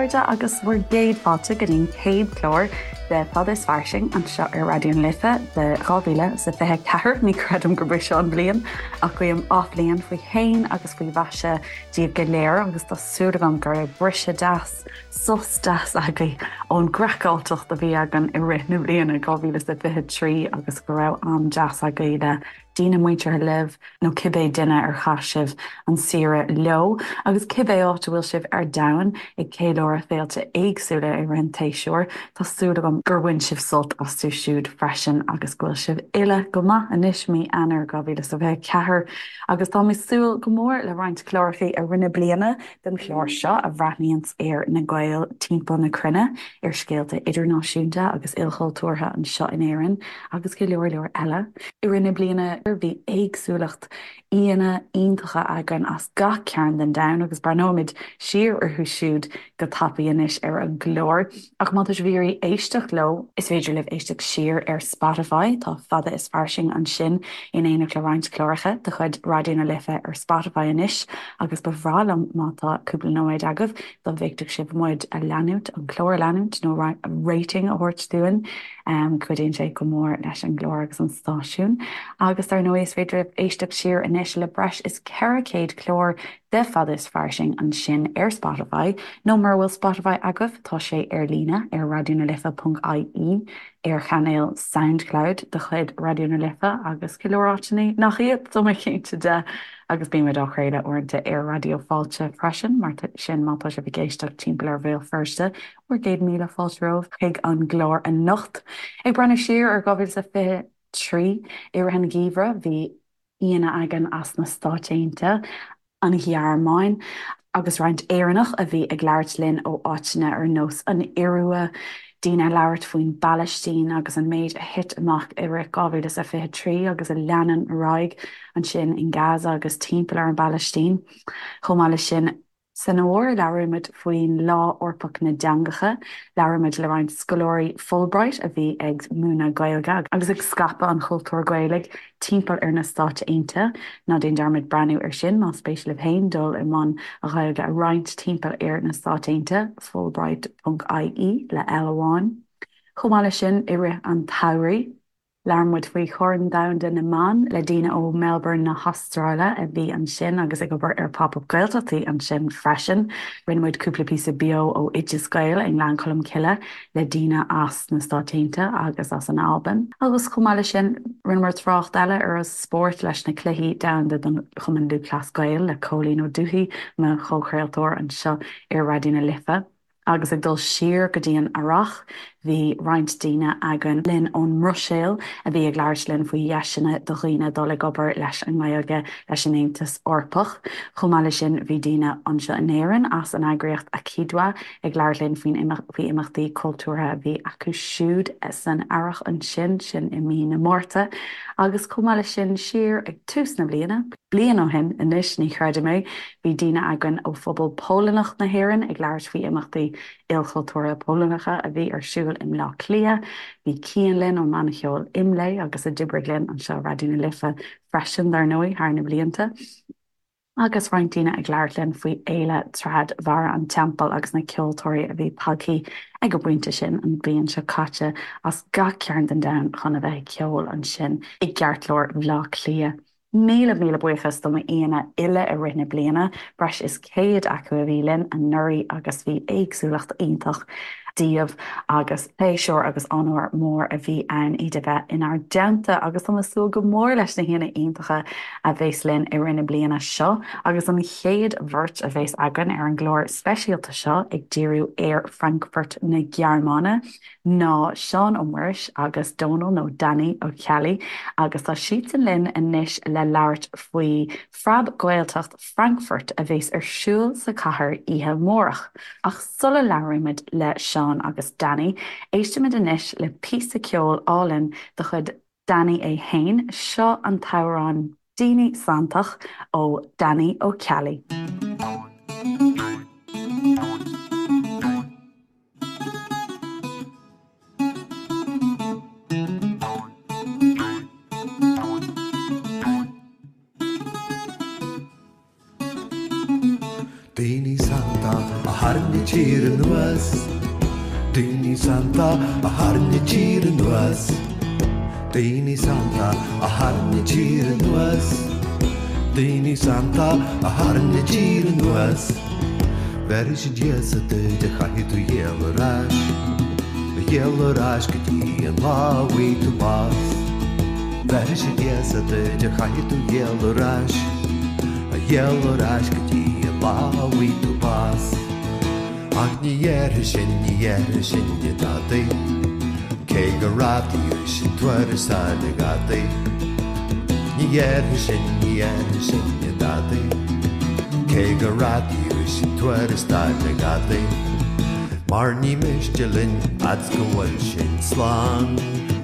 chairde, agus bhur gcéad fáilte go dtí an chéad chlár de Fada is Fairsing anseo ar Raidió na Life de 2024. Ní chreidim gurb í seo an bhliain, ach guím athbhliain faoi shéan agus faoi mhaise daoibh go léir agus tá súil agam go raibh briseadh deas, sos deas agaibh ón gcraiceáilteacht a bhí againn i rith na bliana 2023 agus go raibh am deas agaibh le daoine muinteartha libh nó cibé duine ar chaith sibh an saoire leo, agus cibé áit a bhfuil sibh ar domhan ag ceiliúradh féilte éagsúla i rith an tséasúir, tá súil agam gur bhain sibh sult astu siúd freisin agus go bhfuil sibh uile go maith anois, mí Eanáir 2024, agus táim ag súil go mór le roinnt cláracha i rith na bliana den chlár seo a bhreathnaíonns ar na Gaeil timpeall na cruinne, ar scéalta idirnáisiúnta agus ilchultúrtha anseo in Éirinn agus go leor leor eile. I rith na bliana bhí éagsúlacht aíonna iontacha againn as gach cearn den domhan agus breathnóimid siar orthu siúd go tapaidh anois ar an gclár. Ach má tá sibh ag iarraidh éisteacht leo, is féidir libh éisteacht siar ar Spotify, tá Fada is Fairsing ansin in éineacht le roinnt cláracha de chuid Raidió na Life ar Spotify anois agus ba bhreá liom má tá cúpla nóiméad agaibh dá bhféadfadh sibh muid a leanúint, an clár a leanúint nó rating a thabhairt dúinn. Cuidíonn sé go mór leis an gclár agus an stáisiún. Agus dar ndóigh is féidir libh éisteacht siar anois le breis is 400 clár de Fada is Fairsing ansin ar Spotify, nó mura bhfuil Spotify agaibh, tá sé ar líne ar raidionalife.ie, ar chainéal Soundcloud de chuid Raidió na Life agus go leor áiteanna nach iad, tá mé cinnte de, agus bímid á chraoladh uaireanta ar Raidió Fáilte freisin, mar sin má tá sibh ag éisteacht timpeall ar Bhéal Feirste, bhur gcéad míle fáilte romhaibh chuig an gclár anocht. Ag breathnú siar ar 2023, i rith an gheimhridh, bhí aíonna againn as na Stáit Aontaithe, an Ghearmáin agus roinnt Éireannach a bhí ag labhairt linn ó áiteanna ar nós an Iorua, daoine ag labhairt faoin bPalaistín agus an méid a thit amach i rith 2023 agus a leanann ar aghaidh ansin in Gaza agus timpeall ar an bPalaistín. Chomh maith leis sin, San fhómhar, labhraímid faoin Lá Eorpach na dTeangacha. Labhraímid le roinnt scoláirí Fulbright a bhí ag múineadh Gaeilge agus ag scaipeadh an chultúir Ghaelaigh timpeall ar na Stáit Aontaithe. Ná déan dearmad breathnú ar sin más spéis libh féin dul i mbun an Ghaeilge a roinnt timpeall ar na Stáit Aontaithe, fulbright.ie le L amháin. Chomh maith leis sin, i rith an tsamhraidh, Labhair muid faoi Chorn Domhanda na mBan le daoine ó Melbourne na hAstráile a bhí ansin agus ag obair ar Pop Up Gaeltachtaí ansin freisin. Rinne muid cúpla píosa beo ó Oideas Gael i nGleann Cholm Cille le daoine as na Stáit Aontaithe agus as an Albain. Agus chomh maith leis sin, rinneamar trácht eile ar an spórt leis na Cluichí Domhanda don Chumann Lúthchleas Gael le Cóilín Ó Dubhthaigh, mo chomhchraoltóir anseo ar Raidió na Life. Agus ag dul siar go dtí an Earrach, bhí roinnt daoine againn linn ón mBruiséil a bhí ag labhairt linn faoi dheiseanna do dhaoine dul ag obair leis an nGaeilge leis an Aontas Eorpach. Chomh maith leis sin, bhí daoine anseo in Éirinn as an eagraíocht AkiDwA ag labhairt linn faoin faoi imeachtaí cultúrtha a bhí acu siúd san Earrach ansin, sin i mí na Márta. Agus chomh maith leis sin, siar ag tús na bliana, bliain ó shin anois, ní chreidim é, Bhí daoine againn ó phobal Polannach na hÉireann ag labhairt faoi imeachtaí ilchultúrtha Polannacha a bhí ar siúl i mBleá Cliath. Bhí Cian linn ón mbanna ceoil IMLÉ agus a d'oibrigh linn anseo i Raidió na Life freisin, dar ndóigh, thar na blianta. Agus roinnt daoine ag labhairt linn faoi Fhéile Trad Bharra an Teampaill agus na ceoltóirí a bhí tagtha ag an bpointe sin an bhliain seo caite as gach cearn den domhan chun a bheith ag ceol ansin i gceartlár Bhleá Cliath. Míle míle buíochas do m'aíonna uile i rith na bliana, breis is 100 acu a bhí linn anuraidh agus bhí éagsúlacht iontach díobh agus pléisiúr agus onóir mór a bhí ann iad a bheith inár dteannta agus táim ag súil go mór leis na haíonna iontacha a bheas linn i rith na bliana seo agus an chéad bheirt a bheas againn ar an gclár speisialta seo ag díriú ar Frankfurt na Gearmáine. ná Seán Ó Muiris agus Dónal nó Danny Ó Ceallaigh agus tá siadsan linn anois le labhairt faoi Phreab-Ghaeltacht Frankfurt a bheas ar siúl sa chathair oíche amárach. Ach sula labhraímid le Seán agus Danny, éistimid anois le píosa ceoil álainn de chuid Danny é fhéin, seo an t-amhrán Daoine Santach ó Danny Ó Ceallaigh. Daoine santa a tharraing. tír anuas. Daoine sannta a tharraing an tír anuas. Daoine sannta a tharraing an tír anuas. Daoine sannta a tharraing an tír anuas. Bhéarfaidh siad Íosa duit ach caithfidh tú ghéilleadh ar ais. Ghéilleadh ar ais go dtí an lá a bhfaighidh tú bás. Bhéarfaidh siad Íosa duit ach caithfidh tú ghéilleadh ar ais. Ghéilleadh ar ais go dtí an lá a bhfaighidh tú bás. Ach ní dhéarfaidh sin, ní dhéarfaidh sinne dadaí, cé gur radaíodh sinn tuarascáil a ghadaí. Ní dhéarfaidh sin, ní dhéarfaidh sinne dadaí, cé gur radaíodh sinn tuarascáil a ghadaí. Mar ní miste linn fhad's go bhfuil sinn slán,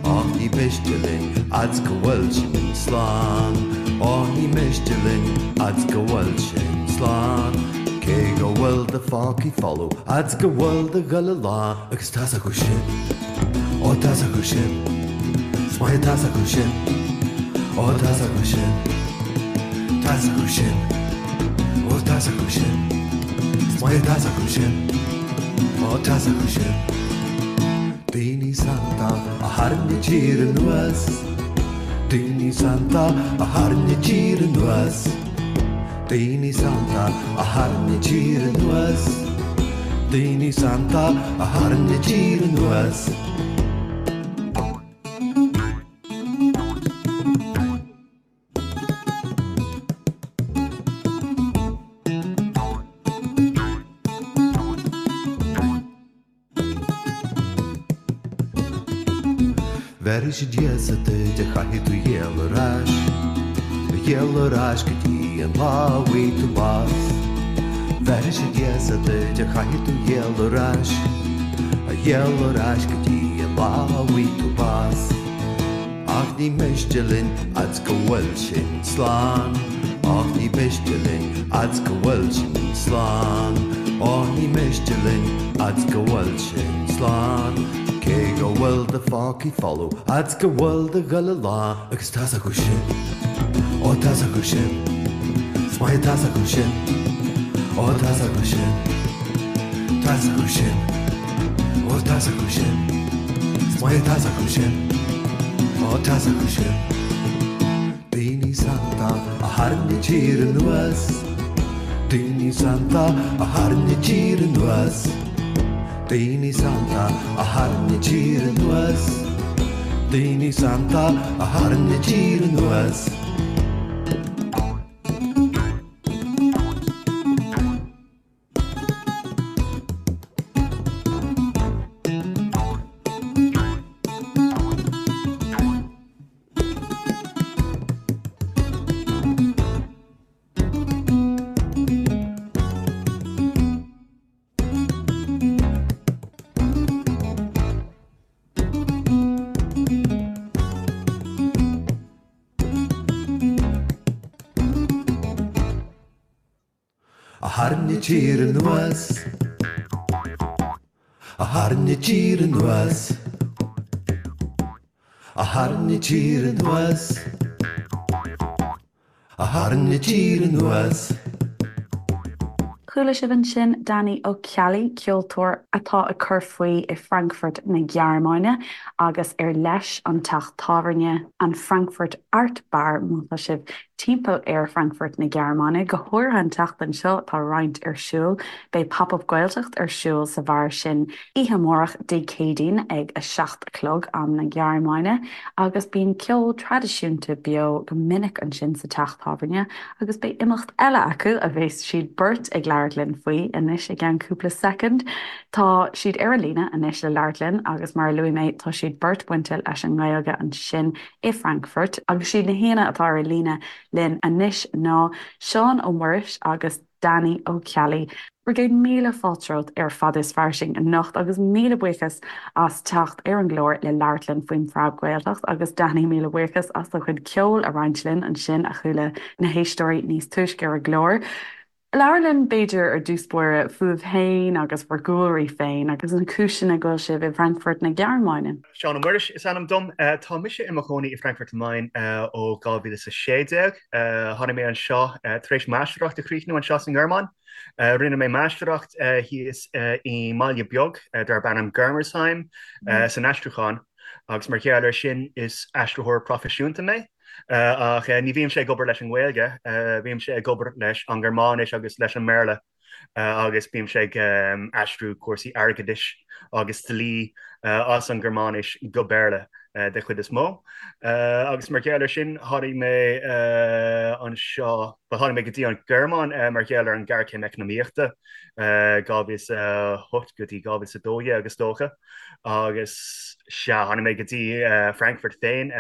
Á ní miste linn fhad's go bhfuil sinn slán, Á ní miste linn fhad's go bhfuil sinn slán. Cé go bhfuil do phócaí folamh fhad's go bhfuil do ghoile lán Agus tá's acu sin, ó tá's acu sin, 's maith tá's acu sin, ó tá's acu sin, Tá's acu sin, ó tá's acu sin, 's maith tá's acu sin, ó tá's acu sin. Daoine sannta a tharraing an tír anuas, Daoine sannta a tharraing an tír anuas. Daoine sannta a tharraing an tír anuas, Daoine sannta a tharraing an tír anuas. Bhéarfaidh siad Íosa duit ach caithfidh tú ghéilleadh ar ais, ghéilleadh ar ais go dtí an lá a bhfaighidh tú bás. Bhéarfaidh siad Íosa duit ach caithfidh tú ghéilleadh ar ais, ghéilleadh ar ais go dtí an lá a bhfaighidh tú bás. Ach ní miste linn fhad's go bhfuil sinn slán, Ach ní miste linn fhad's go bhfuil sinn slán, Ó ní miste linn fhad's go bhfuil sinn slán, Cé go bhfuil do phócaí folamh fhad's go bhfuil do ghoile lán. Agus tá's acu sin, ó tá's acu sin, 's maith tá's acu sin, ó tá's acu sin, Tá's acu sin, ó tá's acu sin, 's maith tá's acu sin, ó tá's acu sin. Daoine sannta a tharraing an tír anuas, Daoine sannta a tharraing an tír anuas, Daoine sannta a tharraing an tír anuas, Daoine sannta a tharraing an tír anuas. A tharraing an tír anuas, A tharraing an tír anuas, A tharraing an tír anuas, A tharraing an tír anuas. Chuala sibh ansin Danny Ó Ceallaigh, ceoltóir atá ag cur faoi i Frankfurt na Gearmáine agus ar leis an teach tábhairne, an Frankfurt Art Bar má tá sibh timpeall ar Frankfurt na Gearmáine, go háirithe an tseachtain seo, tá roinnt ar siúl. Beidh Pop Up Gaeltacht ar siúl sa bheár sin oíche amárach, Dé Céadaoin, ag 7 a chlog, am na Gearmáine, agus bíonn ceol traidisiúnta beo go minic ansin sa teach tábhairne agus beidh imeacht eile acu a bheas siad beirt ag labhairt linn faoi anois i gceann cúpla soicind. Tá siad ar an líne anois le labhairt linn agus mar a luaigh mé tá siad beirt bainte leis an nGaeilge ansin i Frankfurt agus siad na haíonna atá ar an líne linn anois ná Seán Ó Muiris agus Danny Ó Ceallaigh. Bhur gcéad míle fáilte romhat ar Fada is Fairsing anocht agus míle buíochas as teacht ar an gclár le labhairt linn faoin Phreab-Ghaeltacht agus Danny míle buíochas as do chuid ceoil a roinnt linn ansin a chuala na héisteoirí níos túisce ar an gclár. Labhair linn, b'fhéidir, ar dtús báire, fúibh féin agus bhur gcúlraí féin agus na cúiseanna go bhfuil sibh i bhFrankfurt na Gearmáine. Seán Ó Muiris is ainm dom. Tá mise i mo chónaí i Frankfurt am Main ó 2016. Tháinig mé anseo tar éis máistreacht a chríochnú anseo sa nGearmáin. Rinne mé máistreacht thíos i mbaile beag darb ainm Germersheim san aistriúchán agus mar gheall air sin is aistritheoir proifisiúnta mé. Ach ní bhímse ag obair leis an nGaeilge, bímse ag obair leis an nGearmáinis agus leis an mBéarla agus bímse ag aistriú cúrsaí airgeadais agus dlí as an nGearmáinis go Béarla de chuid is mó. Agus mar gheall air sin tháinig mé anseo, bhuel tháinig mé go dtí an Ghearmáin mar gheall ar an ghéarchéim eacnamaíochta 2008 go dtí 2012 is dócha. Agus sea, tháinig mé go dtí Frankfurt féin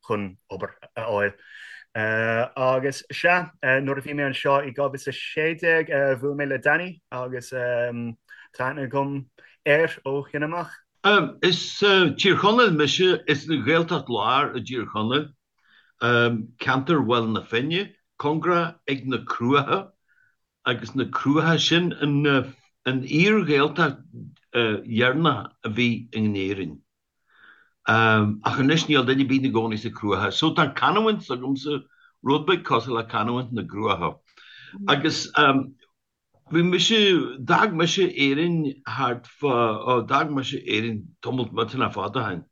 chun obair a fháil. Agus sea, nuair a bhí mé anseo i 2016, bhuail mé le Danny agus tá aithne agam air ó shin amach. Is Tír Chonaill mise, is an Ghaeltacht Láir i dTír Chonaill, ceantar Bhaile na Finne, cóngarach ag na Cruacha. Agus na Cruacha, sin an fhíor-Ghaeltacht dheireanach a bhí in Éirinn. Ach anois níl duine ar bith ina gcónaí sa Cruacha. So tá canúint s'agamsa, rud beag cosúil le canúint na gCruachach. Agus bhí mise, d'fhág mise Éirinn thart fá, ó d'fhág mise Éirinn tamall millteanach fada ó shin.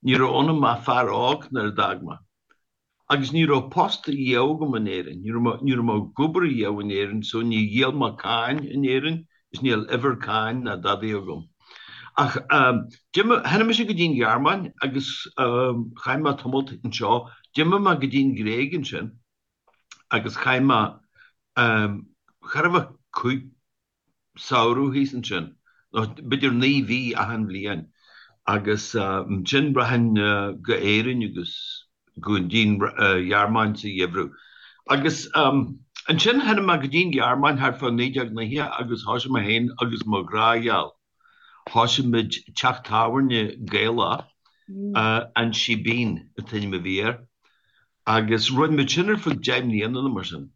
Ní raibh ionam ach fear óg nuair a d'fhág mé. Agus ní raibh post riamh agam in Éirinn, ní raibh mé, ní raibh mé ag obair riamh in Éirinn so ní dhíol mé cáin in Éirinn is níl uimhir cáin ná dadaí agam. Ach d'imigh, tháinig mise go dtí an Ghearmáin agus chaith mé tamalt anseo, d'imigh mé go dtí an Ghréig ansin agus chaith mé, chóir a bheith cúig, samhradh thíos ansin, nó b'fhéidir 9 mhí achan bhliain, agus ansin rachainn go Éirinn agus go dtí an Ghearmáin sa gheimhreadh. Agus ansin tháinig mé go dtí an Ghearmáin thart fá 1990 agus thosaigh mé féin agus mo ghrá-gheal, thosaigh muid teach tábhairne Gaelach, An Síbín an t-ainm a bhí air, agus rinne muid sin ar feadh 10 mbliana nó mar sin.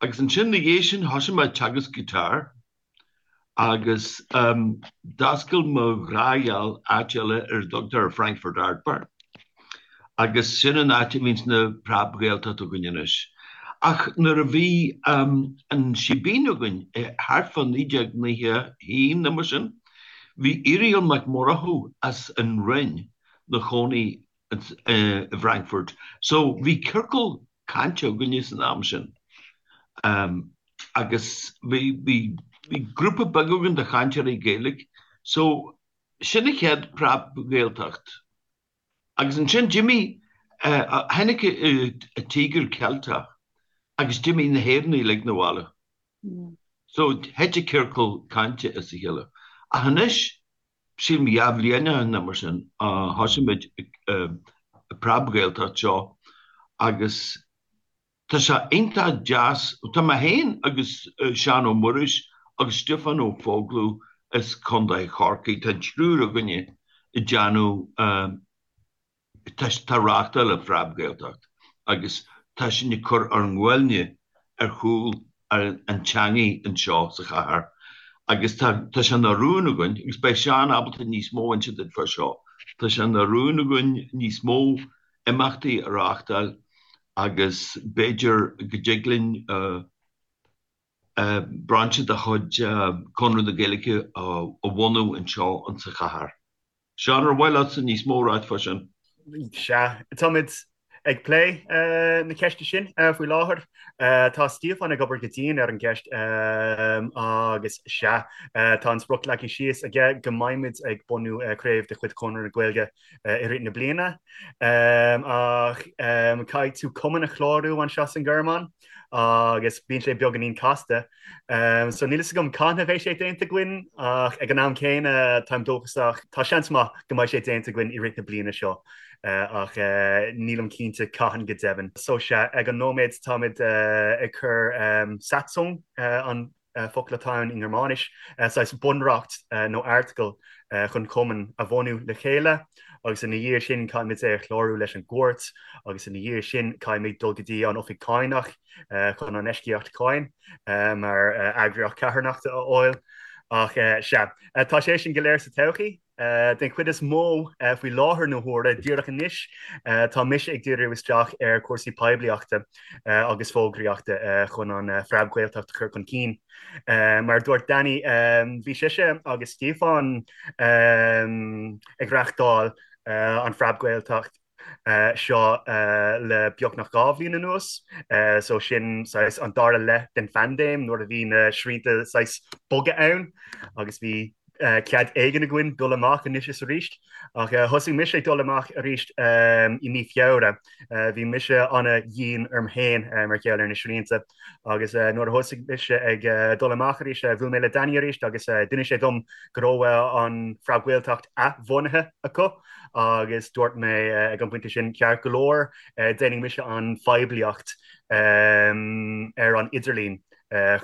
Agus ansin ina dhiaidh sin thosaigh mé ag teagasc guitar agus d'oscail mo ghrá-gheal áit eile ar a dtugtar Frankfurt Art Bar agus sin an áit a bhíonns na Preab-Ghaeltacht againn anois. Ach nuair a bhí an Síbín againn thart fá 1991 nó mar sin, bhí Irial Mac Murchú as an Rinn 'na chónaí i bhFrankfurt. So bhí ciorcal cainte againne san am sin agus bhí bhí bhí grúpa beag againn de chainteoirí Gaeilge. So sin an chéad Preab-Ghaeltacht. Agus ansin d'imigh tháinig an Tíogar Ceilteach agus d'imigh na hÉireannaigh uilig 'na bhaile. So thit an ciorcal cainte as a chéile. Ach anois Sílim 2 bhliain ó shin nó mar sin, thosaigh muid an Preab-Ghaeltacht seo agus tá sé iontach deas, tá mé féin agus Seán Ó Muiris agus Stiofán Ó Foghlú as Contae Chorcaí, tá an triúr againne ag déanamh Tá ag reáchtáil an Phreab-Ghaeltacht agus tá sinn ag cur ár nguailne ar chúl an teangaidh anseo sa chathair agus tá tá sé ina rún againn, agus beidh Seán ábalta níos mó a inse duit fá seo, tá sé ina rún againn níos mó imeachtaí a reáchtáil agus b'fhéidir go dtig linn brainse de chuid Conradh na Gaeilge a bhunú anseo insa chathair. Seán, ar mhaith leatsa níos mó a ráit fá sin? Sea, táimid ag plé na ceiste sin faoi láthair. Tá Stiofán ag obair go dian ar an gceist agus sea, tá an sprioc leagtha síos aige go mbeimid ag bunú craobh de chuid Chonradh na Gaeilge i rith na bliana. Ach caithfidh tú cumann a chlárú anseo san Ghearmáin agus bíonn sé beagáinín casta. So níl fhios agam cathain a bheidh sé déanta againn ach ag an am céanna táim dóchasach, tá seans maith go mbeidh sé déanta againn i rith na bliana seo ach nílim cinnte cathain go deimhin. So sea, ag an nóiméad táimid ag cur Satzung an. focal atá ann i nGearmáinis, saghas bunreacht nó airteagal chun cumann a bhunú le chéile agus ina dhiaidh sin caithfimid é a chlárú leis an gcúirt agus ina dhiaidh sin caithfimid dul go dtí an oifig cánach chun an eisceacht cáin mar eagraíocht carthanachta a fháil. Ach sea, tá sé sin go léir sa todhchaí. Den chuid is mó, faoi láthair na huaire, díreach anois, tá mise ag díriú isteach ar chúrsaí poiblíochta agus fógraíochta chun an Phreab-Ghaeltacht a chur chun cinn. Mar a dúirt Danny, bhí sise agus Stiofán ag reáchtáil an Phreab-Ghaeltacht seo le beagnach 2 bhliain anuas, so sin saghas an dara leath den phaindéim nuair a bhí na srianta saghas boga ann agus bhí cead éigin againn dul amach anois is arís. Ach thosaigh mise ag dul amach arís i mí Feabhra. Bhí mise ana-dhian orm féin mar gheall ar na srianta agus nuair a thosaigh mise ag dul amach arís, bhuail mé le Danny arís agus d'inis sé dom go raibh an Phreab-Ghaeltacht athbhunaithe acu agus dúirt mé ag an bpointe sin, ceart go leor, déanfaidh mise an phoiblíocht ar an idirlíon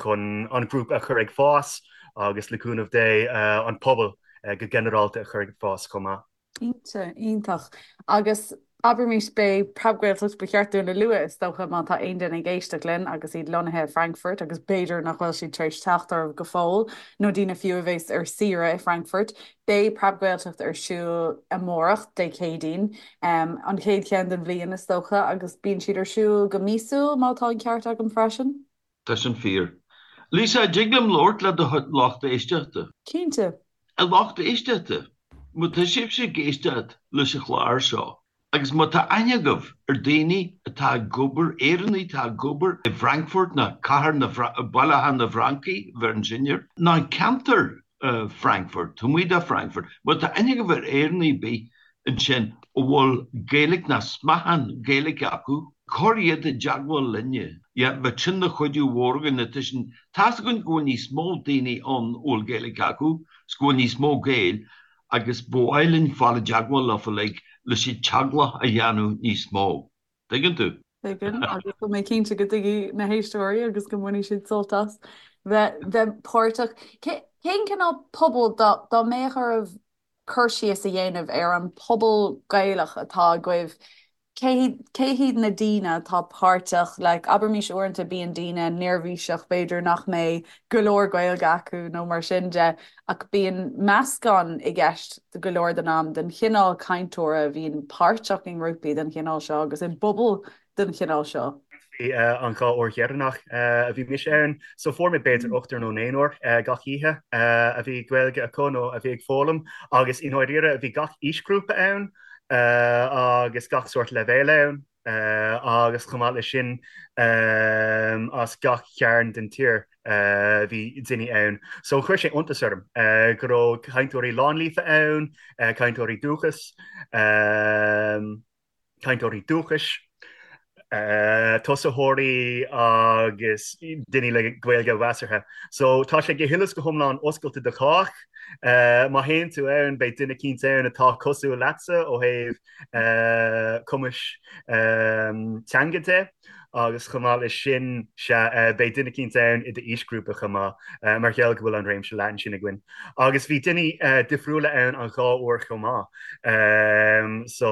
chun an grúpa a chur ag fás agus le cúnamh Dé an pobal go ginearálta a chur ag fás chomh maith. Cinnte, iontach. Agus abraimis, beidh Preab-Ghaeltacht, ba cheart dúinn a lua, is dócha, má tá aon duine ag éisteacht linn agus iad lonnaithe i Frankfurt agus b'fhéidir nach bhfuil siad tar éis teacht oraibh go fóill, nó daoine fiú a bheas ar saoire i Frankfurt, beidh Preab-Ghaeltacht ar siúl amárach, Dé Céadaoin, an chéad cheann den bhliain, is dócha, agus bíonn siad ar siúl go míosúil, má tá an ceart agam freisin. Tá sin fíor. Lisa, an dtig liom labhairt le do lucht éisteachta? Cinnte. A lucht éisteachta, má tá sibhse ag éisteacht leis an chlár seo, agus má tá aithne agaibh ar daoine atá ag obair, Éireannaigh atá ag obair i bhFrankfurt ná cathair na, Baile Átha na bhFrancaigh, bheireann sin air, ná ceantar Frankfurt, taobh amuigh de Frankfurt, má tá aithne agaibh ar Éireannaigh ar bith ansin a bhfuil Gaeilge ná smeachán Gaeilge acu, cuir iad i dteagmháil linne. Yeah, bheadh sin ina chuidiú mhór againn, tá sin, tá's againn go bhfuil níos mó daoine ann a bhfuil Gaeilge acu, 's go bhfuil níos mó Gaeil agus ba mhaith linn fáil i dteagmháil leofa like leis an teaghlach a dhéanamh níos mó. Tuigeann tú? Tuigim, agus tá mé cinnte go dtuigfidh na héisteoirí agus go mbainfidh siad sult as bheith bheith páirteach. Cén cineál pobal dá dá mbeadh oraibh cur síos a dhéanamh ar an pobal Gaelach atá agaibh, cé cé hiad na daoine atá páirteach, like abraimis uaireanta bíonn daoine neirbhíseach b'fhéidir nach mbeidh go leor Gaeilge acu nó mar sin de ach bíonn meascán i gceist go leor den am den chineál cainteora a bhíonn páirteach i ngrúpaí den chineál seo agus i bpobail den chineál seo. Bhí an dá uair dheireanach a bhí mise ann, so fuair mé b'fhéidir ochtar nó naonúr gach oíche a bhí Gaeilge acu nó a bhí ag foghlaim agus i ndáiríre bhí gach aoisghrúpa ann agus gach sórt leibhéil ann agus chomh maith leis sin as gach cearn den tír bhí daoine ann. So chuir sé iontas orm go raibh cainteoirí lánlíofa ann, cainteoirí dúchais, cainteoirí dúchais, tosaitheoirí agus daoine le Gaeilge mheasartha. So tá sé go huile is go hiomlán oscailte do chách. Má théann tú ann beidh duine eicínt ann atá cosúil leatsa ó thaobh cumais teanga de agus chomh maith leis sin sea beidh duine eicínt ann i d'aoisghrúpa chomh maith mar gheall go bhfuil an réimse leathan sin againn. Agus bhí daoine difriúla ann an dhá uair chomh maith. So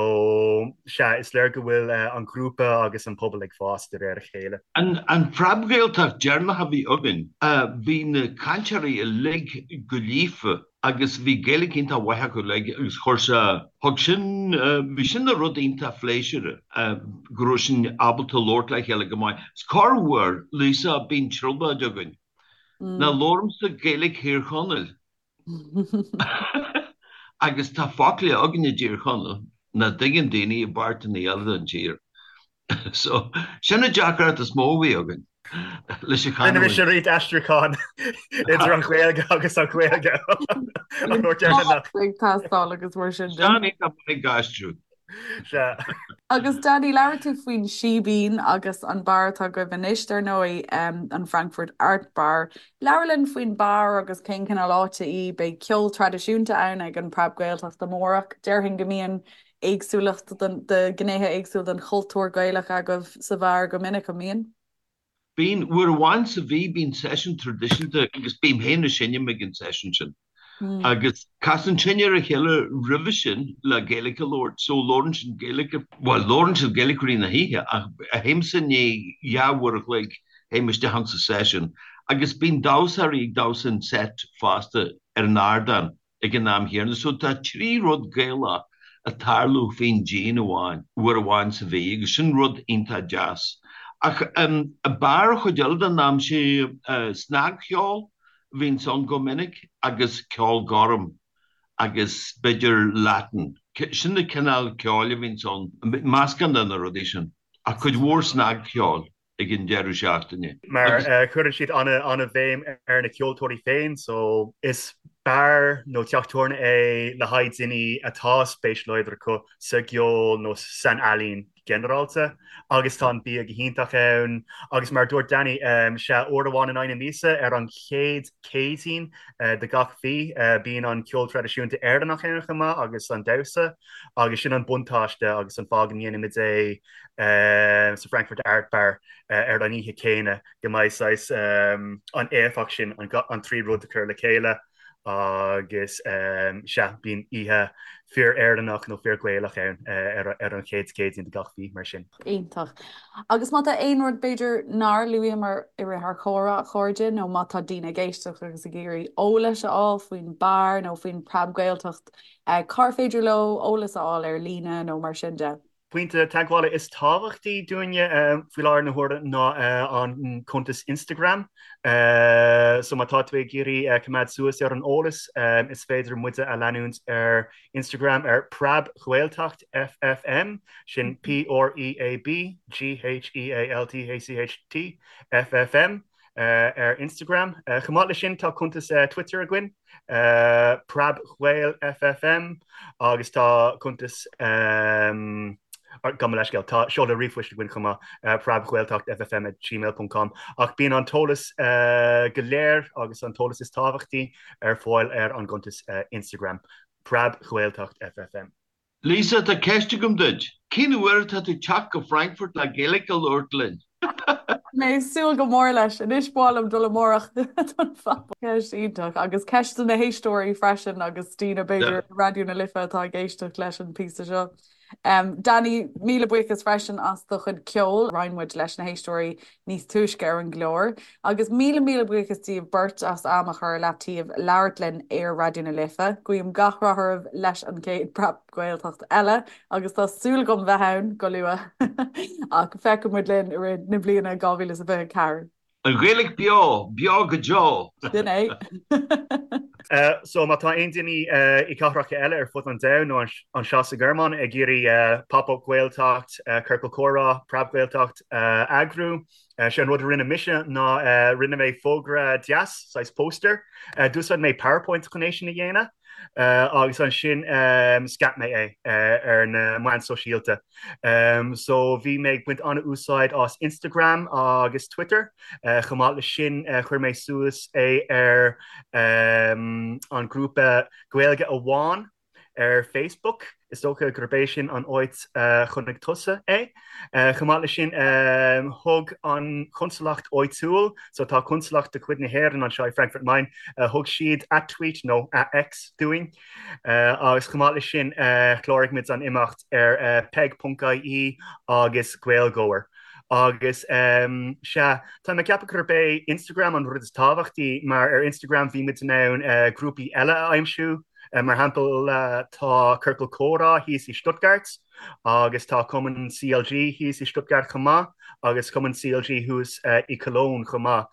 sea is léir go bhfuil an grúpa agus an pobal ag fás de réir a chéile. An Phreab-Ghaeltacht deireanach a bhí againn, bhí na cainteoirí uilig go líofa agus bhí Gaeilge iontach mhaith acu uilig agus chuir sé, thug sin, bhí sin ina rud iontach phléisiúrtha go raibh sinn ábalta labhairt le chéile go maith. Is corruair, Lisa, bíonn trioblóid againn. Ná labhraímse Gaeilge Thír Chonaill agus tá focla againn i dTír Chonaill nach dtuigeann daoine i bpáirteanna eile den tír. So, sin an deacracht is mó a bhí againn leis an chanúint. Rinne mise roinnt aistriúchán idir an Ghaeilge agus an Ghaeilge an uair dheireanach. Ag teastáil agus mar sin de. Sean ag ag aistriú. Sea. Agus Danny, labhair tú faoin Síbín agus an beár atá agaibh anois, dar ndóigh, an Frankfurt Art Bar. Labhair linn faoin beár agus cén cineál áite í. Beidh ceol traidisiúnta ann ag an Preab Gaeltacht amárach. Déarfainn go mbíonn éagsúlacht de ghnéithe éagsúla den chultúr Gaelach agaibh sa bheár go minic, an mbíonn? Bíonn, uair amháin sa mhí bíonn seisiún traidisiúnta agus bím féin ag seinm ag an seisiún sin. Agus casann sinn ar a chéile roimhe sin le Gaeilge a labhairt, so labhrann sinn Gaeilge, bhuel labhrann siad Gaeilge i rith na hoíche ach théimse i ndiaidh dhá uair a chloig théim isteach insa seisiún agus bíonn damhsóirí ag damhsa an set fosta ar an ardán ag an am chéanna. So tá 3 rud Gaelach ag tarlú faoin díon amháin, uair amháin sa mhí agus sin rud iontach deas. Ach bar an chuid eile den am sé snagcheol a bhíonns ann go minic agus ceol gorm agus b'fhéidir Latin. Sin na cineál ceoil a bhíonns ann, meascán de na rudaí sin ach cuid mhór snagcheoil. ag an deireadh seachtaine. Mar cuireann siad an-bhéim ar na ceoltóirí féin so is beár nó teach tabhairne é le haghaidh daoine atá spéis láidir acu sa gceol nó san ealaín ginearálta agus tá an bia go hiontach ann agus mar a dúirt Danny sea uair amháin in aghaidh na míosa ar an chéad Céadaoin de gach mhí bíonn an ceol traidisiúnta Éireannach ann chomh maith agus an damhsa agus sin an buntáiste agus an fáth go ndéanaimid é sa Frankfurt Art Bar ar an oíche chéanna go mbeidh saghas an éifeacht sin an trí rud a chur le chéile agus sea bíonn oíche fíor-Éireannach nó fíor-Ghaelach ann ar an chéad Chéadaoin de gach mhí mar sin. Iontach. Agus má tá aon rud b'fhéidir nár luaíomar i rith ár chomhrá, a chairde, nó má tá daoine ag éisteacht agus ag iarraidh eolais a fháil faoin beár nó faoin Preab-Ghaeltacht, cár féidir leo eolas a fháil ar líne nó mar sin de? Pointe teagmhála is tábhachtaí dúinne faoi láthair na huaire ná an cuntas Instagram. So má tá tú ag iarraidh coimeád suas ar an eolas, is féidir muide a leanúint ar Instagram ar Preab-Ghaeltacht FFM, sin P-R-E-A-B G-H-E-A-L-T-A-C-H-T F-F-M. ar Instagram. Chomh maith leis sin tá cuntas Twitter againn, PreabGhaelFFM, agus tá cuntas, gabh mo leithscéal, tá seoladh ríomhphoist againn chomh maith, preabghaeltachtffm at gmail ponc com. Ach bíonn an t-eolas go léir agus an t-eolas is tábhachtaí ar fáil ar an gcuntas Instagram, PreabGhaeltachtFFM. Lisa, tá ceist agam duit. Cén uair atá tú teacht go Frankfurt le Gaeilge a labhairt linn? Mé ag súil go mór leis. Anois ba mhaith liom dul amárach don phop. Ceist iontach. Agus ceist do na héisteoirí freisin agus daoine b'fhéidir i Raidió na Life atá ag éisteacht leis an píosa seo. Danny, míle buíochas freisin as do chuid ceoil. Roinn muid leis na héisteoirí níos túisce ar an gclár. Agus míle míle buíochas díobh beirt as am a chur ar leataobh labhairt linn ar Raidió na Life. Guím gach rath oraibh leis an gcéad Preab-Ghaeltacht eile agus tá súil agam bheith ann go luath! Ach feicfidh muid linn i rith na bliana 2024. An Ghaeilge beo, beo go deo! Sin é! So má tá aon duine i cathracha eile ar fud an domhain nó anseo sa Ghearmáin ag iarraidh Pop-Up Gaeltacht, Ciorcal Comhrá, Preab-Ghaeltacht a eagrú, Sé an rud a rinne mise ná rinne mé fógra deas, saghas póstaer. D'úsáid mé PowerPoint chun é sin a dhéanamh agus ansin scaip mé é ar na meáin sóisialta. So bhí mé ag baint an-úsáid as Instagram agus Twitter. Chomh maith leis sin chuir mé suas é ar an grúpa Gaeilge Amháin ar Facebook, is dócha gurb é sin an áit a chonaic tusa é. Chomh maith leis sin, thug an chonsalacht áitiúil, so tá consalacht de chuid na hÉireann anseo i Frankfurt Main, thug siad at-tweet nó at-X dúinn. Agus chomh maith leis sin, chláraigh muid an imeacht ar peig.ie agus Gaeilgeoir. Agus sea, tá mé ag ceapadh gurb é Instagram an rud is tábhachtaí mar ar Instagram bhí muid in ann grúpaí eile a aimsiú, Mar shampla, tá Ciorcal Comhrá thíos i Stuttgart agus tá Cumann CLG thíos i Stuttgart chomh maith agus Cumann CLG thuas i Cologne chomh maith.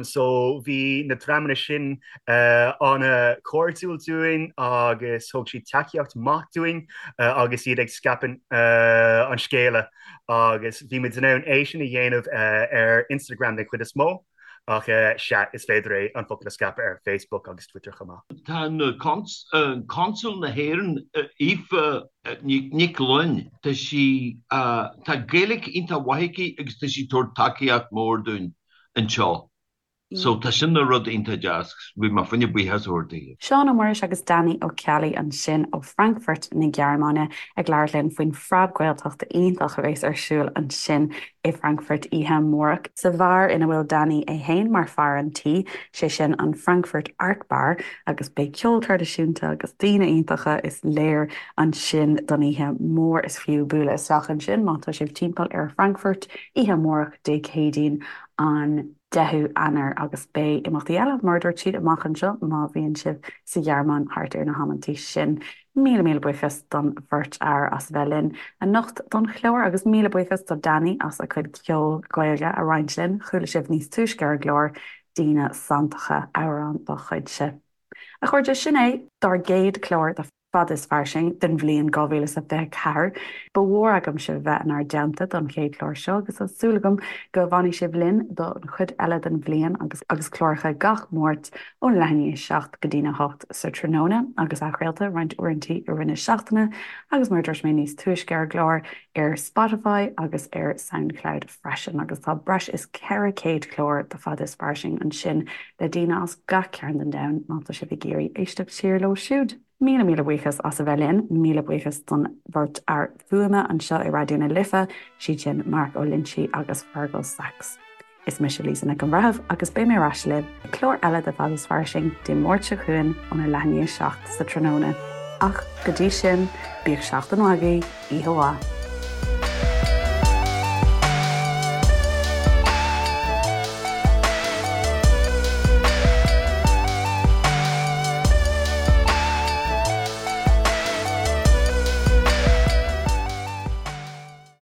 So bhí na dreamanna sin an-chairdiúil dúinn agus thug siad tacaíocht maith dúinn agus iad ag scaipeadh an scéala agus bhí muid in ann é sin a dhéanamh ar Instagram den chuid is mó. Ach sea, is féidir é an focal a scaipeadh ar Facebook agus Twitter chomh maith. Tá Consal na hÉireann, Aoife Nic Fhloinn, tá sí, tá Gaeilge iontach mhaith aici agus tá sí ag tabhairt tacaíocht mór dúinn anseo. So tá sin ina rud iontach deas, bhí mé fá choinne buíochas a thabhairt daoibh. Seán Ó Muiris agus Danny Ó Ceallaigh ansin ó Frankfurt na Gearmáine ag labhairt linn faoin Phreab-Ghaeltacht iontach a bheas ar siúl ansin i Frankfurt oíche amárach sa bheár ina bhfuil Danny é fhéin mar fear an tí, sé sin an Frankfurt Art Bar agus beidh ceol traidisiúnta agus daoine iontacha is léir ansin don oíche mhór. Is fiú bualadh isteach ansin má tá sibh timpeall ar Frankfurt oíche amárach Dé Céadaoin an 10ú Eanáir agus beidh imeachtaí eile, mar a dúirt siad, amach anseo má bhíonn sibh sa Ghearmáin thart ar na hamantaí sin. Míle míle buíochas don bheirt fhear as a bheith linn anocht don chlár agus míle buíochas do Danny as a chuid ceol Gaeilge a roinnt linn. Chuala sibh níos túisce ar an gclár Daoine Santacha, amhrán dá chuidse. A chairde, sin é dár gcéad chlár de. Fada is Fairsing den bhliain 2024. Ba mhór agam sibh a bheith inár dteannta don chéad chlár seo agus tá súil agam go bhfanfaidh sibh linn don chuid eile den bhliain agus agus cláracha gach Máirt ón leath i ndiaidh 7 go dtína 8 sa tráthnóna agus athchraolta roinnt uaireanta i rith na seachtaine agus mar a dúirt mé níos túisce ar an gclár ar Spotify agus ar Soundcloud freisin agus tá breis is 400 clár de Fada is Fairsing ansin le daoine as gach cearn den domhan má tá sibh ag iarraidh éisteacht siar leo siúd. Míle míle buíochas as a bheith linn. Míle buíochas don bheirt fhear fuaime anseo i Raidió na Life, siad sin Mark Ó Loinsigh agus Fergal Sachs. Is mise Lisa Nic an Bhreithimh agus beidh mé ar ais libh le clár eile de Fada is Fairsing Dé Máirt seo chugainn óna leath i ndiaidh 7 sa tráthnóna. Ach go dtí sin, bíodh seachtain mhaith agaibh, oíche mhaith.